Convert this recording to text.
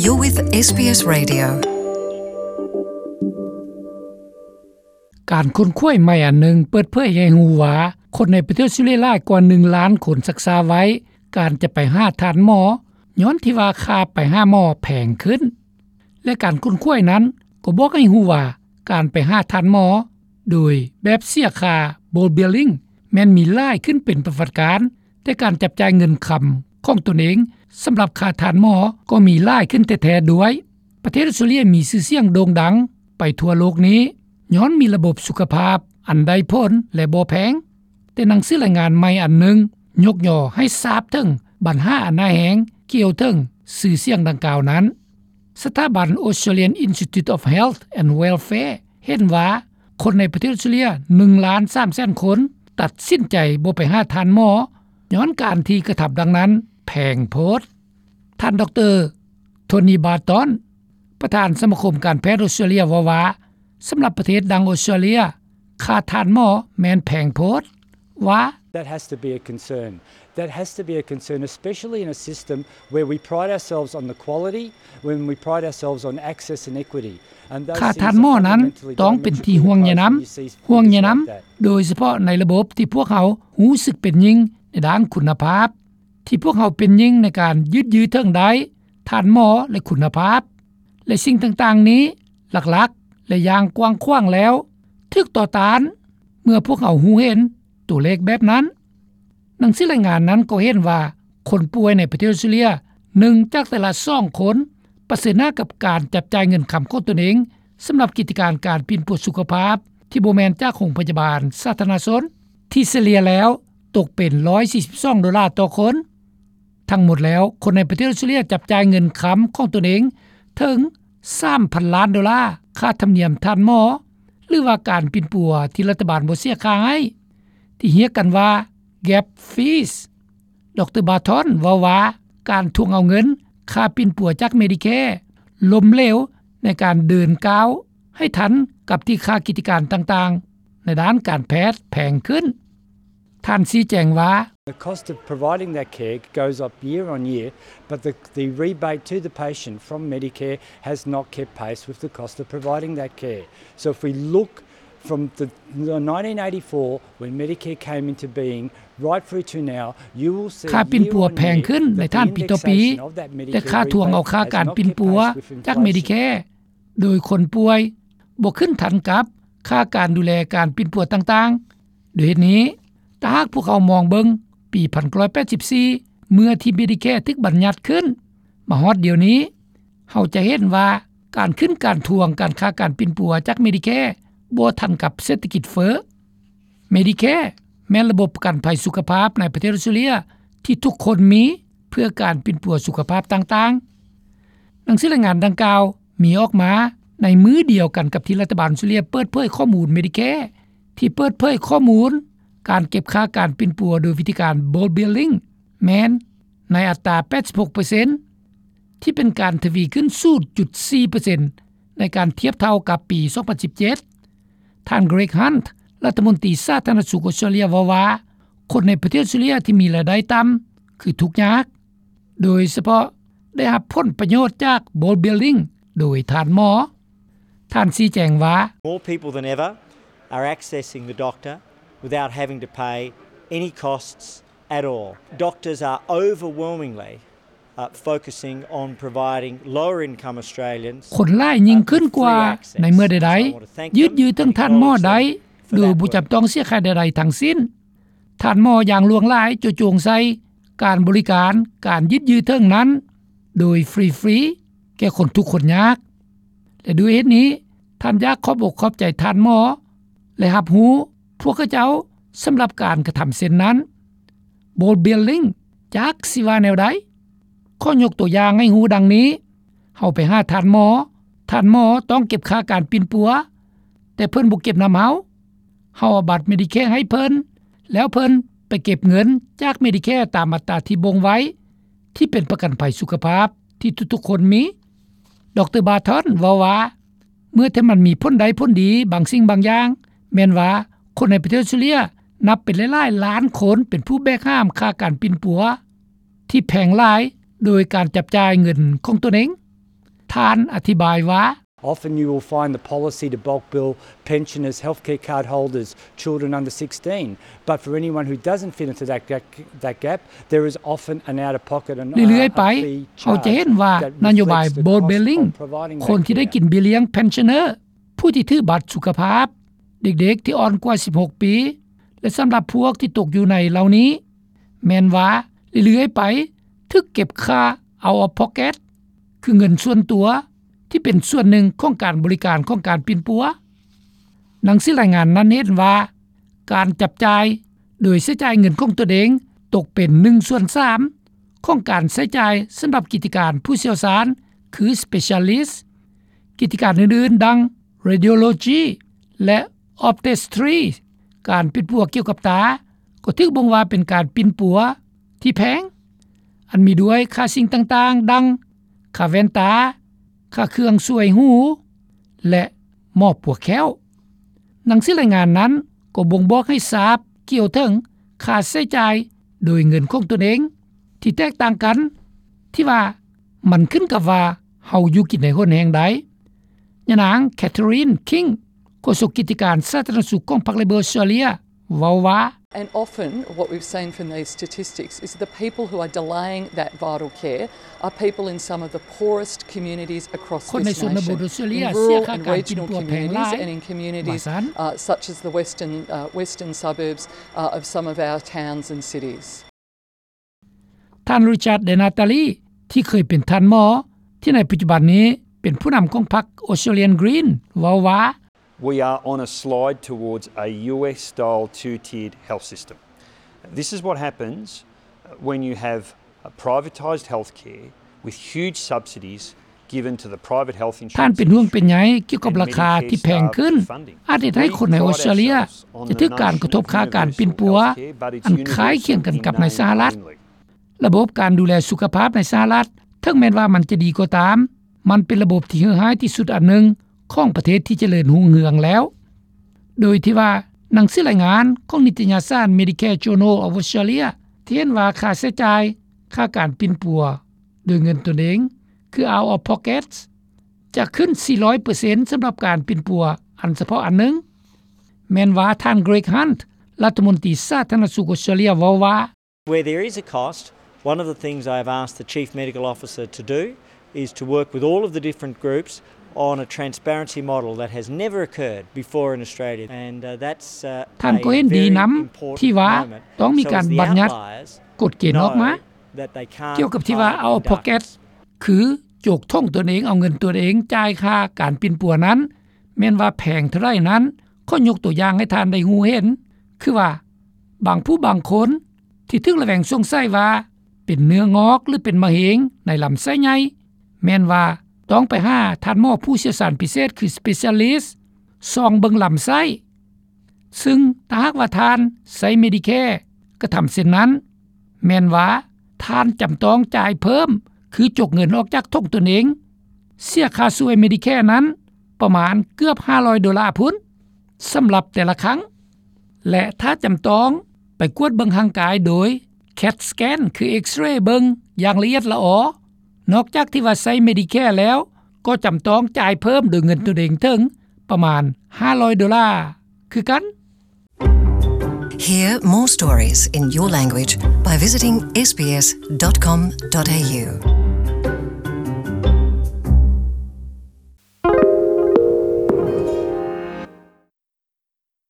You're with ເອສ ບີ ເອສ Radio. ການຄົ້ນຄວ້າໃໝ່ອັນໜຶ່ງເປີດເຜີຍໃຫ້ຮູ້ວ່າ ຄົນໃນປະເທດອອສເຕຣເລຍຫຼາຍກວ່າໜຶ່ງລ້ານຄົນຊັກຊ້າໄວ້ການຈະໄປຫາທ່ານໝໍ ຍ້ອນທີ່ວ່າຄ່າໄປຫາໝໍແພງຂຶ້ນ ແລະ ການຄົ້ນຄວ້ານັ້ນກໍບອກໃຫ້ຮູ້ວ່າ ການໄປຫາທ່ານໝໍໂດຍແບບເສຍຄ່າ bulk billing ແມ່ນມີຫຼາຍຂຶ້ນເປັນປະຫວັດການ, ແຕ່ການຈັບຈ່າຍເງິນຄຳຂອງຕົນເອງສຳລັບຄ່າທ່ານໝໍກໍມີຫຼາຍຂຶ້ນແທ້ໆດ້ວຍ. ປະເທດອອສເຕຣເລຍມີຊື່ສຽງໂດ່ງດັງໄປທົ່ວໂລກນີ້ ຍ້ອນມີລະບົບສຸຂະພາບອັນໄດ້ຜົນ ແລະ ບໍ່ແພງ. ແຕ່ໜັງສືລາຍງານໃໝ່ອັນໜຶ່ງຍົກຍໍໃຫ້ຊາບເຖິງບັນຫາອັນຮ້າຍແຮງກ່ຽວເຖິງຊື່ສຽງດັ່ງກ່າວນັ້ນ. ສະຖາບັນ Australian Institute of Health and Welfare ເຫັນວ່າ ຄົນໃນປະເທດອອສເຕຣເລຍໜຶ່ງລ້ານສາມແສນຄົນ ຕັດສິນໃຈບໍ່ໄປຫາທ່ານໝໍ ຍ້ອນການທີ່ກະທຳດັ່ງນັ້ນແພງໂພດ. ທ່ານ ດຣ. Tony Barton ປະທານສະມາຄົມການແພດອອສເຕຣເລຍເວົ້າວ່າ ສຳລັບປະເທດດັ່ງອອສເຕຣເລຍ ຄ່າທ່ານໝໍແມ່ນແພງໂພດ, ວ່າ That has to be a concern. That has to be a concern, especially in a system where we pride ourselves on the quality, when we pride ourselves on access and equity. And those things are fundamentally diametrically opposed. ຄ່າທ່ານໝໍນັ້ນຕ້ອງເປັນທີ່ຫ່ວງໃຍນຳ, ຫ່ວງໃຍນຳ, ໂດຍສະເພາະໃນລະບົບທີ່ພວກເຮົາຮູ້ສຶກເປັນຍິ່ງໃນດ້ານຄຸນນະພາບ, ທີ່ພວກເຮົາເປັນຍິ່ງໃນການຍືດເຖິງໄດ້ທ່ານໝໍ ແລະ ຄຸນນະພາບ ແລະ ສິ່ງຕ່າງໆນີ້ ຫຼັກໆ ແລະ ຢ່າງກວ້າງຂວາງແລ້ວ ຖືກຕໍ່ຕ້ານເມື່ອພວກເຮົາຮູ້ເຫັນຕົວເລກແບບນັ້ນ. ໜັງສືລາຍງານນັ້ນກໍເຫັນວ່າ ຄົນປ່ວຍໃນປະເທດອອສເຕຣເລຍ ໜຶ່ງຈາກແຕ່ລະສອງຄົນປະເຊີນໜ້າກັບການຈັບຈ່າຍເງິນຄຳຂອງຕົນເອງ ສຳລັບກິດຈະການການປິ່ນປົວສຸຂະພາບ ທີ່ບໍ່ແມ່ນຈາກໂຮງພະຍາບານສາທາລະນະຊົນ ທີ່ສະເລ່ຍແລ້ວຕົກເປັນຮ້ອຍສີ່ສິບສອງໂດລາຕໍ່ຄົນ. ທັງໝົດແລ້ວ ຄົນໃນປະເທດອອສເຕຣເລຍຈັບຈ່າຍເງິນຄຳຂອງຕົນເອງເຖິງສາມພັນລ້ານໂດລາ ຄ່າທຳນຽມທ່ານໝໍ ຫຼືວ່າການປິ່ນປົວທີ່ລັດຖະບານບໍ່ເສຍຄ່າໃຫ້ ທີ່ຮຽກກັນວ່າ gap fees. ດຣ. Barton ເວົ້າວ່າ ການທວງເອົາເງິນຄ່າປິ່ນປົວຈາກ Medicare ລົ້ມເຫຼວໃນການເດີນກ້າວໃຫ້ທັນກັບທີ່ຄ່າກິດຈະການຕ່າງໆໃນດ້ານການແພດແພງຂຶ້ນ. ທ່ານຊີ້ແຈງວ່າ The cost of providing that care goes up year on year, but the, the rebate to the patient from Medicare has not kept pace with the cost of providing that care. So if we look from the, the nineteen eighty-four, when Medicare came into being, right through to now, you will see ຄ່າປິ່ນປົວແພງຂຶ້ນໃນທ່ານປີຕໍ່ປີ ແຕ່ຄ່າທວງເອົາຄ່າການປິ່ນປົວຈາກ Medicare ໂດຍຄົນປ່ວຍບໍ່ຂຶ້ນທັນກັບຄ່າການດູແລການປິ່ນປົວຕ່າງໆ. ດ້ວຍເຫດນີ້ ຖ້າຫາກພວກເຮົາມອງເບິ່ງປີໜຶ່ງພັນເກົ້າຮ້ອຍແປດສິບສີ່ ເມື່ອທີ່ Medicare ຖືກບັນຍັດຂຶ້ນ ມາຮອດດຽວນີ້ ເຮົາຈະເຫັນວ່າການຂຶ້ນການທວງການຄ່າການປິ່ນປົວຈາກ Medicare ບໍ່ທັນກັບເສດຖະກິດເຟີ້. Medicare ແມ່ນລະບົບປະກັນໄພສຸຂະພາບໃນປະເທດອອສເຕຣເລຍທີ່ທຸກຄົນມີເພື່ອການປິ່ນປົວສຸຂະພາບຕ່າງໆ. ໜັງສືລາຍງານດັ່ງກ່າວມີອອກມາໃນມື້ດຽວກັນກັບທີ່ລັດຖະບານອອສເຕຣເລຍເປີດເຜີຍຂໍ້ມູນ Medicare ທີ່ເປີດເຜີຍຂໍ້ມູນການເກັບຄ່າການປິ່ນປົວໂດຍວິທີການ bulk billing ແມ່ນໃນອັດຕາແປດສິບຫົກເປີເຊັນ ທີ່ເປັນການທະວີຂຶ້ນສູນຈຸດສີ່ເປີເຊັນ ໃນການທຽບເທົ່າກັບປີສອງພັນສິບເຈັດ. ທ່ານ Greg Hunt ລັດຖະມົນຕີສາທາລະນະສຸກອອສເຕຣເລຍເວົ້າວ່າ ຄົນໃນປະເທດອອສເຕຣເລຍທີ່ມີລາຍໄດ້ຕ່ຳຄືທຸກຍາກ ໂດຍສະເພາະໄດ້ຮັບຜົນປະໂຫຍດຈາກ bulk billing ໂດຍທ່ານໝໍ. ທ່ານຊີ້ແຈງວ່າ More people than ever are accessing the doctor without having to pay any costs at all. Doctors are overwhelmingly, uh, focusing on providing lower income Australians, ຄົນຫຼາຍຍິ່ງຂຶ້ນກວ່າໃນເມື່ອໃດໆ ຍືດເຖິງທ່ານໝໍໄດ້ໂດຍບໍ່ຈຳຕ້ອງເສຍຄ່າໃດໆທັງສິ້ນ. ທ່ານໝໍຢ່າງຫຼວງຫຼາຍໂຈະຈົງໃສ່ການບໍລິການ ການຍືດເຖິງນັ້ນໂດຍຟຣີໆ ແກ່ຄົນທຸກຄົນຍາກ ແລະ ດ້ວຍເຫດນີ້ ທ່ານຢາກຂອບອົກຂອບໃຈທ່ານໝໍ ແລະ ຮັບຮູ້ພວກເຂົາເຈົ້າສຳລັບການກະທຳເຊັ່ນນັ້ນ. Bulk billing ຈັກຊິວ່າແນວໃດ? ຂໍຍົກຕົວຢ່າງໃຫ້ຮູ້ດັ່ງນີ້, ເຮົາໄປຫາທ່ານໝໍ, ທ່ານໝໍຕ້ອງເກັບຄ່າການປິ່ນປົວ, ແຕ່ເພິ່ນບໍ່ເກັບນຳເຮົາ. ເຮົາເອົາບັດ Medicare ໃຫ້ເພິ່ນ, ແລ້ວເພິ່ນໄປເກັບເງິນຈາກ Medicare ຕາມອັດຕາທີ່ບົ່ງໄວ້, ທີ່ເປັນປະກັນໄພສຸຂະພາບທີ່ທຸກໆຄົນມີ. ດຣ. Barton ເວົ້າວ່າ ເມື່ອທີ່ມັນມີຜົນໄດ້ຜົນດີບາງສິ່ງບາງຢ່າງ, ແມ່ນວ່າຄົນໃນປະເທດອອສເຕຣເລຍນັບເປັນຫຼາຍໆລ້ານຄົນເປັນຜູ້ແບກຫາມຄ່າການປິ່ນປົວທີ່ແພງຫຼາຍແບ ໂດຍການຈັບຈ່າຍເງິນຂອງຕົນເອງ. ທ່ານອະທິບາຍວ່າ, Often you will find the policy to bulk bill pensioners, healthcare card holders, children under sixteen. But for anyone who doesn't fit into that ga-, that gap, there is often an out-of-pocket and, uh, ເລື້ອຍໆໄປ, ເຮົາຈະເຫັນວ່ານະໂຍບາຍ bulk billing ຄົນທີ່ໄດ້ກິນເບ້ຍລ້ຽງ pensioner ຜູ້ທີ່ຖືບັດສຸຂະພາບ, ເດັກໆທີ່ອ່ອນກວ່າສິບຫົກປີ ແລະ ສຳລັບພວກທີ່ຕົກຢູ່ໃນເຫຼົ່ານີ້ ແມ່ນວ່າເລື້ອຍໆໄປຖືກເກັບຄ່າ out of pocket ຄືເງິນສ່ວນຕົວ ທີ່ເປັນສ່ວນໜຶ່ງຂອງການບໍລິການຂອງການປິ່ນປົວ. ໜັງສືລາຍງານນັ້ນເຫັນວ່າ ການຈັບຈ່າຍໂດຍໃຊ້ຈ່າຍເງິນຂອງຕົນເອງຕົກເປັນໜຶ່ງສ່ວນສາມຂອງການໃຊ້ຈ່າຍສຳລັບກິດຈະການຜູ້ຊ່ຽວຊານ ຄື specialist. ກິດຈະການອື່ນໆ ດັ່ງ radiology ແລະ optometry ການປິ່ນປົວກ່ຽວກັບຕາ ກໍຖືກບົ່ງວ່າເປັນການປິ່ນປົວທີ່ແພງ, ອັນມີດ້ວຍຄ່າສິ່ງຕ່າງໆ ດັ່ງ ຄ່າແວ່ນຕາ, ຄ່າເຄື່ອງຊ່ວຍຫູ ແລະ ໝໍປົວແຂ້ວ. ໜັງສືລາຍງານນັ້ນກໍບົ່ງບອກໃຫ້ຊາບກ່ຽວເຖິງຄ່າໃຊ້ຈ່າຍໂດຍເງິນຂອງຕົນເອງ ທີ່ແຕກຕ່າງກັນ, ທີ່ວ່າມັນຂຶ້ນກັບວ່າເຮົາຢູ່ກິນໃນຫົນແຫ່ງໃດ. ຍານາງ Catherine King ໂຄສົກກິດຈະການສາທາລະນະສຸກຂອງພັກ Labor ອອສເຕຣເລັຍ ເວົ້າວ່າ, And often what we've seen from these statistics is the people who are delaying that vital care are people in some of the poorest communities across this nation, in rural and regional communities and in communities, uh, such as the western, uh, western suburbs, uh, of some of our towns and cities. ທ່ານ Richard Di Natale ທີ່ເຄີຍເປັນທ່ານໝໍ ທີ່ໃນປັດຈຸບັນນີ້ເປັນຜູ້ນຳຂອງພັກ Australian Green ເວົ້າວ່າ, We are on a slide towards a U S style two-tiered health system. This is what happens when you have a privatised healthcare with huge subsidies given to the private health insurance industry. ທ່ານເປັນຫ່ວງເປັນໃຍກ່ຽວກັບລາຄາທີ່ແພງຂຶ້ນ ອາດເຮັດໃຫ້ຄົນໃນອອສເຕຣເລັຍຈະຖືກການກະທົບຄ່າການປິ່ນປົວ ອັນຄ້າຍຄຽງກັນກັບໃນສະຫະລັດ. ລະບົບການດູແລສຸຂະພາບໃນສະຫະລັດ ເຖິງແມ່ນວ່າມັນຈະດີກໍຕາມ, ມັນເປັນລະບົບທີ່ເຫື່ອຮ້າຍທີ່ສຸດອັນໜຶ່ງຂອງປະເທດທີ່ຈະເລີນຮຸ່ງເຮືອງແລ້ວ. ໂດຍທີ່ວ່າໜັງສືລາຍງານຂອງນິຕະຍະສານ Medicare Journal of Australia ທີ່ເຫັນວ່າຄ່າໃຊ້ຈ່າຍ ຄ່າການປິ່ນປົວໂດຍເງິນຕົນເອງ ຄື out of pocket ຈະຂຶ້ນສີ່ຮ້ອຍເປີເຊັນ ສຳລັບການປິ່ນປົວອັນສະເພາະອັນໜຶ່ງ, ແມ່ນວ່າທ່ານ Greg Hunt ລັດຖະມົນຕີສາທາລະນະສຸກອອສເຕຣເລັຍເວົ້າວ່າ, Where there is a cost, one of the things I have asked the Chief Medical Officer to do is to work with all of the different groups on a transparency model that has never occurred before in Australia, and, uh, that's, uh, ທ່ານກໍເຫັນດີນຳທີ່ວ່າຕ້ອງມີການບັນຍັດກົດເກນອອກມາ ກ່ຽວກັບທີ່ວ່າ out of pocket ຄືໂຈກຖົງຕົນເອງ ເອົາເງິນຕົນເອງຈ່າຍຄ່າການປິ່ນປົວນັ້ນ ແມ່ນວ່າແພງເທົ່າໃດນັ້ນ, ຂໍຍົກຕົວຢ່າງໃຫ້ທ່ານໄດ້ຮູ້ເຫັນ ຄືວ່າບາງຜູ້ບາງຄົນທີ່ຖືກລະແວງສົງໄສວ່າເປັນເນື້ອງອກ ຫຼື ເປັນມະເຮັງໃນລຳໄສ້ໃຫຍ່ ແມ່ນວ່າຕ້ອງໄປຫາທ່ານໝໍຜູ້ຊ່ຽວຊານພິເສດ ຄື specialist ສ່ອງເບິ່ງລຳໄສ້. ຊຶ່ງຖ້າຫາກວ່າທ່ານໃຊ້ Medicare ກະທຳເຊັ່ນນັ້ນ, ແມ່ນວ່າທ່ານຈຳຕ້ອງຈ່າຍເພີ່ມ ຄືຈົກເງິນອອກຈາກຖົງຕົນເອງ, ເສຍຄ່າຊ່ວຍ Medicare ນັ້ນປະມານເກືອບຫ້າຮ້ອຍໂດລາພຸ້ນ ສຳລັບແຕ່ລະຄັ້ງ. ແລະ ຖ້າຈຳຕ້ອງໄປກວດເບິ່ງຮ່າງກາຍໂດຍ CAT scan ຄື X-ray ເບິ່ງຢ່າງລະອຽດລະອໍ, ນອກຈາກທີ່ວ່າໃຊ້ Medicare ແລ້ວ ກໍຈຳຕ້ອງຈ່າຍເພີ່ມໂດຍເງິນຕົນເອງເຖິງປະມານຫ້າຮ້ອຍໂດລາຄືກັນ. Hear more stories in your language by visiting S B S dot com dot A U.